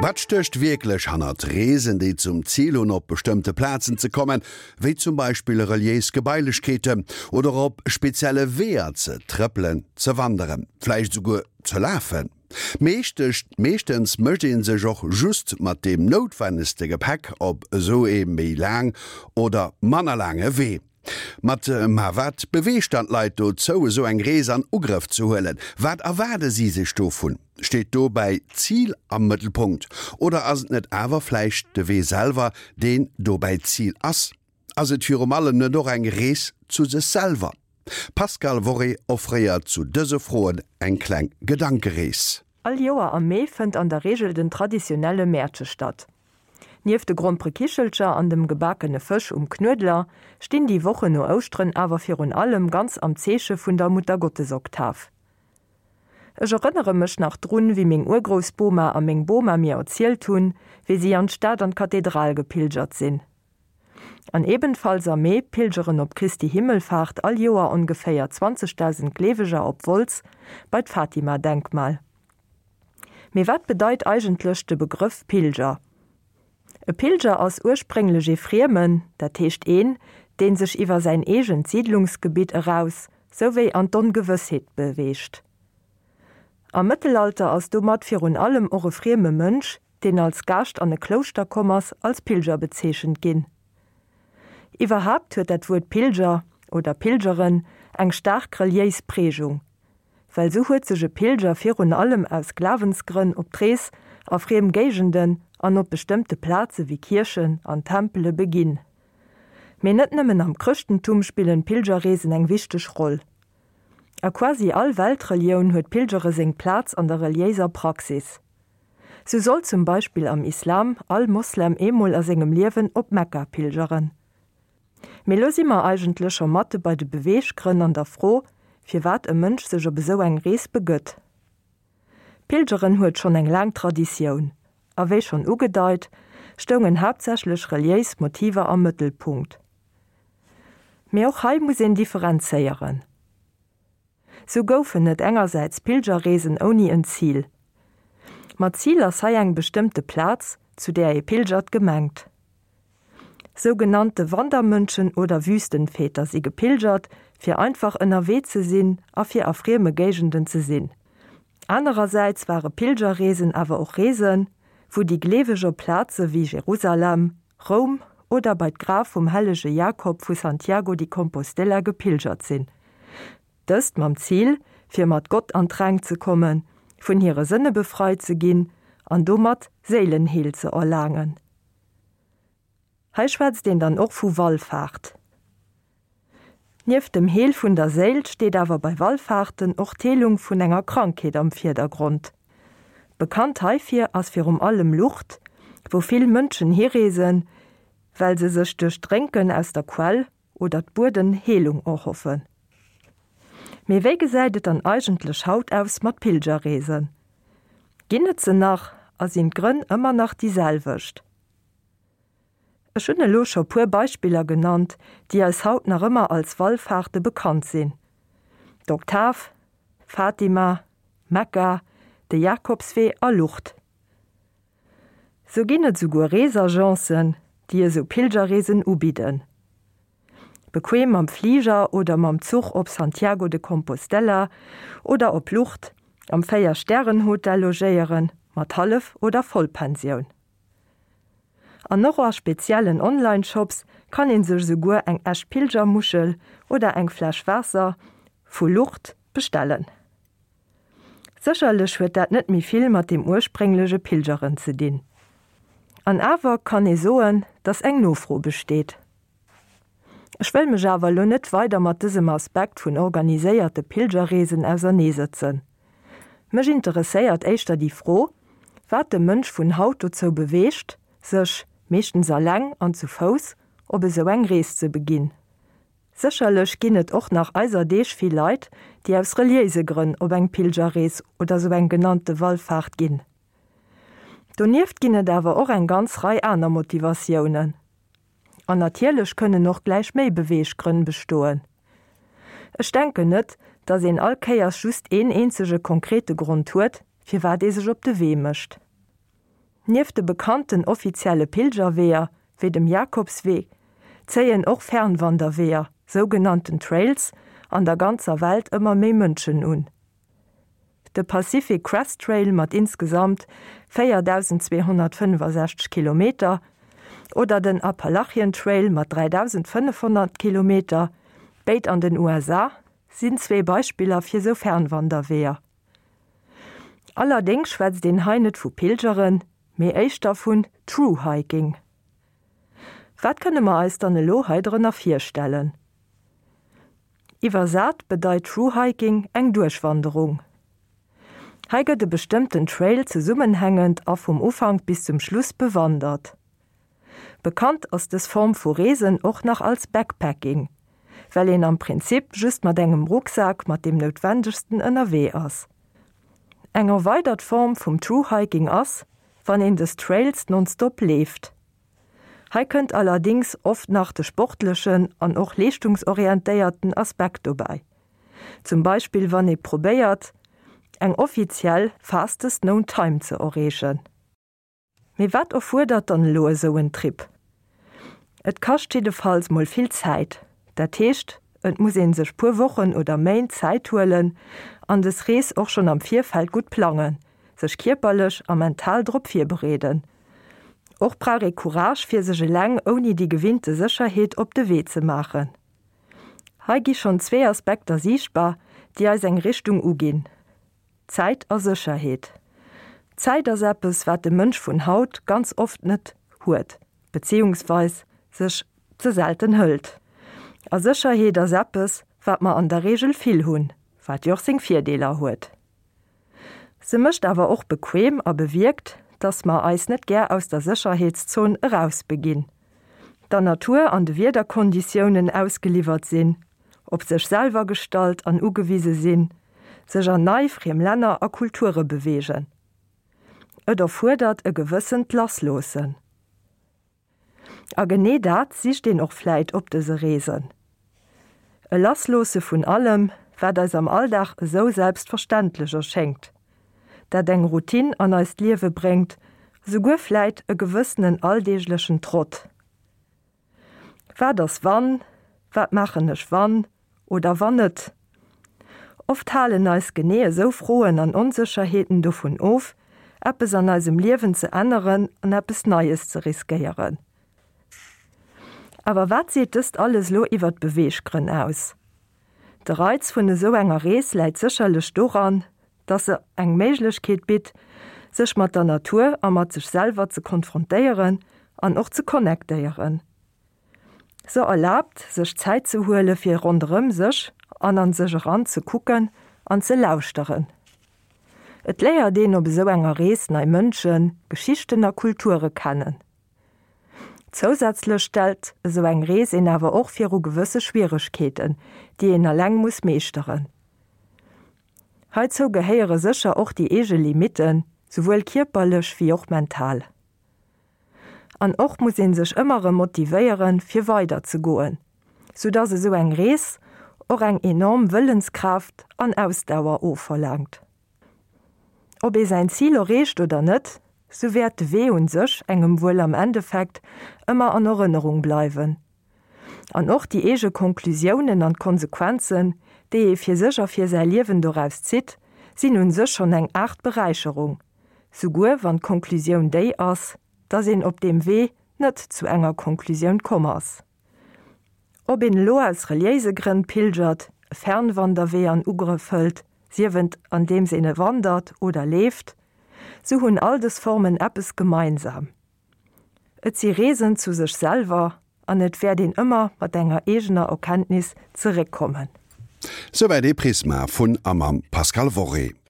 Wat stécht wierklech hannert Reesen, déi zum Zil hunn, op bestëmmte Plazen ze kommen, wéi zum Beispill reliéis Gebailechkeeten, oder op spezielle Weeër ze trëppelen, ze wanderen, vläicht esouguer ze lafen? Meeschtens mécht ee sech och just mat deem noutwennegste Gepäck op esou ee méi laang oder manner laange Wee. Mat, Ma wat beweegt dann d'Leit dozou, esou eng Rees an Ugrëff ze huelen? Wat erwaarde si sech dovun? Steet dobäi d'Zil am Mëttelpunkt oder ass et net awer vläicht de Wee selwer, deen dobäi d'Zil ass? Ass et virum allem net och eng Rees zu sech selwer? D'Pascale Worré offréiert zu dëse Froen eng kleng Gedankerees. All Joer am Mee fënnt an der Reegel den traditionelle Mäertche statt. Nieft de Gromperekichelcher an dem gebakene Fësch um Knuedler stinn déi Wochen no Ouschteren awer virun allem ganz am Zeeche vun der Muttergottesoktav. Ech erënnere mech nach drun, wéi meng Urgroussboma a meng Boma mir erzielt hunn, wéi si an d'Stad an d'Kathedral gepilgert sinn. An ebenfalls am Mee pilgeren op Christi Himmelfahrt all Joer ongeféier 20.000 Gleeweger op Wolz bei d'Fatima-Denkmal. Mee wat bedeit eigentlech de Begrëff Pilger? E Pilger ass ursprénglech ee Friemen, dat heescht een, deen sech iwwer säin eegent Siidlungsgebitt eraus souwéi an d'Ongewëssheet beweegt. Am Mëttelalter ass domat virun allem och e frieme Mënsch, deen als Gaascht an e Klouschter komm ass, als Pilger bezeechent ginn. Iwwerhaapt huet dat Wuert Pilger oder Pilgeren eng staark reliéis Prägung. Well sou huet sech e Pilger virun allem aus Glawensgrënn op d'Rees a friem Géigenden an op bestëmmte Plaze wéi Kierchen an Tempele beginn. Mee net nëmmen am Chrëschtentum spillen d'Pilgerreesen eng wichteg Roll. A quasi all Weltrelioun huet d'Pilgere seng Plaz an der reliéiser Praxis. Sou soll zum Beispill am Islam all Moslem eemol a sengem Liewen op Mekka pilgeren. Mee lo si mer eigentlech scho matte bei de Beweeggrënn an der Fro, firwat e Mënsch sech op esou eng Rees begëtt. Pilgeren huet schonn eng laang Traditioun, a wéi schonn ugedeit, stoungen haaptsächlech reliéis Motiver am Mëttelpunkt. Mee och hei muss een differenzéieren. Sou goufen et engersäits Pilgerreesen ouni en Zil. Mat Zil ass hei eng bestëmmte Plaz, zu där ee pilgert, gemengt. Sougenannte Wandermönchen oder Wüstenväter si gepilgert, fir einfach ënnerwee ze sinn a fir a frieme Géigenden ze sinn. Anerersäits ware Pilgerreesen awer och Reesen, wou déi Gleeweg op Plaze wéi Jerusalem, Roum oder bei d'Graf vum hellege Jakob vu Santiago di Compostela gepilgert sinn. Dëst mam Zil, fir mat Gott an d'Rengt ze kommen, vun hire Sënne befreit ze ginn an domat Séilenheel ze erlaangen. Hei schwätzt een dann och vu Wallfaart. Nieft dem Heel vun der Séil steet awer bei Wallfaarten och d'Heelung vun enger Krankheet am Virdergrond. Bekannt heifir ass virum allem Lourdes, wou vill Mënschen hireesen, well se sech duerch d'Drénken aus der Quell oder d'Bueden Heelung erhoffen. Mee wéi gesäit et dann eigentlech haut aus mat Pilgerreesen? Ginn et se nach a sinn d'Grënn ëmmer nach déi selwecht? Ech hunn elo scho puer Beispiller genannt, déi eis haut nach ëmmer als Wallfahrte bekannt sinn, d'Oktav, Fatima, Mekka, de Jakobswee a Lourdes. Sou ginn et souguer Reesagencen, déi esou Pilgerreesen ubidden. Bequem mam Fliger oder mam Zuch op Santiago de Compostela oder op Lourdes, am 4 Stären Hotel logéieren, mat Hallef oder Vollpensioun. An och a speziellen Online-Shops kann een sech esouguer eng echt Pilgermuschel oder eng Fläsch Waasser vu Lourdes bestellen. Sécherlech huet dat net méi vill mat deem ursprénglege Pilgeren ze dinn. An awer kann ee soen, datt eng Nofro besteet. Ech wëll mech awer elo net weider mat dësem Aspekt vun organiséierte Pilgerreesen auserneesëtzen. Mech interesséiert éischter déi Fro, wat de Mënsch vun haut dozou beweegt, sech, meeschtens alleng an zu Fouss, op esou eng Rees ze beginn. Sécherlech ginn et och nach eiser Deeg vill Leit, déi aus reliéise Grënn op eng Pilgerrees oder sou eng genannte Wallfaart ginn. Donieft ginn et awer och eng ganz Rei aner Motivatiounen. An natierlech kënnen och gläich méi Beweeggrënn bestoen. Ech denken net, datt een all Kéiers just een eenzege konkrete Grond huet, firwat ee sech op de Wee mécht. Nieft de bekannten offizielle Pilgerweeër, wéi dem Jakobswee, zéien och Fernwanderweeër, sougenannten Trails, an der ganzer Welt ëmmer méi Mënschen un. De Pacific Crest Trail mat insgesamt 4.265 Kilometer oder den Appalachian Trail mat 3.500 Kilometer, béid an den USA, sinn zwee Beispiller fir sou Fernwanderweeër. Allerdéngs schwätzt een hei net vu Pilgeren, mee éischter vun Thru-Hiking. Wat kënne mer eis dann elo hei drënner virstellen? Iwwersat bedeit Thru-Hiking eng Duerchwanderung. Hei gëtt e bestëmmten Trail zesummenhängend a vum Ufank bis zum Schluss bewandert. Bekannt ass dës Form vu Reesen och nach als Backpacking, well een am Prinzip just mat engem Rucksak mat deem Noutwendegsten ënnerwee ass. Eng erweidert Form vum Thru-Hiking ass, wann een dës Trails nonstop leeft. Hei kënnt allerdéngs oft nach de sportlechen an och leeschtungsorientéierten Aspekt dobäi, zum Beispill wann ee probéiert, eng offiziell Fastest Known Time ze erreechen. Mee wat erfuerdert dann elo esou en Trip? Et kascht jiddefalls mol vill Zäit. Dat heescht, et muss een sech puer Wochen oder Méint Zäit huelen an des Rees och schonn am Virfeld gutt plangen, sech kierperlech a mental drop virbereeden. Och brauch ee Courage fir sech eleng ouni déi gewinnte Sécherheet op de Wee ze maachen. Hei gi schonn zwee Aspekter siichtbar, déi eis eng Richtung uginn. Zäit a Sécherheet. Zäit ass eppes, wat de Mënsch vun haut ganz oft net huet, beziehungsweis sech ze selten hëlt. A Sécherheet ass eppes, wat mer an der Reegel vill hunn, wat jo och seng Virdeeler huet. Se mécht awer och bequem a bewierkt, dass mer eis net gär aus der Sécherheetszon erausbeginn, der Natur an de Wiederkonditiounen ausgeliwwert sinn, op sech selwer gestallt an ugewise sinn, sech an nei, friem Länner a Kulture beweegen. Et erfuerdert e gewëssent Lassloossen. A genee dat sicht een och vläit op dëse Reesen. E Lassloosse vun allem, wat eis am Alldag esou selbstverständlech erschéngt, dat eng Routine an eist Liewe bréngt, esouguer vläit e gewëssenen alldeeglechen Trott. Wat ass wann? Wat maachen ech wann oder wann net? Oft halen eis genee esou Froen an Onsécherheeten dovun of, eppes an eisem Liewen ze änneren an eppes Neies ze riskéieren. Awer wat seet dëst alles elo iwwer d'Beweeggrënn aus? De Reiz vun esou enger Rees läit sécherlech doran, dass se eng Méiglechkeet bitt, sech mat der Natur a mat sech selwer ze konfrontéieren an och ze connectéieren. Se erlaabt, sech Zäit ze huele fir ronderëm sech an an sech eran ze kucken an ze lauschteren. Et léiert een op esou enger Rees nei Mënschen, Geschichten a Kulture kennen. Zousätzlech stellt esou eng Rees een awer och viru gewësse Schwieregkeeten, déi een eleng muss meeschteren. Heizou gehéiere sécher och déi eege Limitten, souwuel kierperlech wéi och mental. An och muss ee sech ëmmer erëm motivéieren, fir weider ze goen, sou dass esou eng Rees och eng enorm Wëllenskraaft an Ausdauer ofverlaangt. Ob ee säin Zil erreecht oder net, sou wäert de Wee un sech engem wuel am Endeffekt ëmmer an Erënnerung bleiwen. An och déi eege Konklusiounen an d'Konsequenzen, déi ee fir sech a fir säi Liewen doraus zitt, sinn un sech schonn eng Aart Beräicherung, souguer wann d'Konklusioun déi ass, dass een op deem Wee net zu enger Konklusioun komm ass. Ob een elo aus reliéise Grënn pilgert, e Fernwanderwee an Ugrëff hëlt, sief et andeems een e wandert oder leeft, sou hunn all dës Formen eppes gemeinsam, Et si Reesen zu sech selwer an et wäert een ëmmer mat enger eegener Erkenntnis zeréckkommen. Souwäit ee Prisma vun a mam Pascal Worré.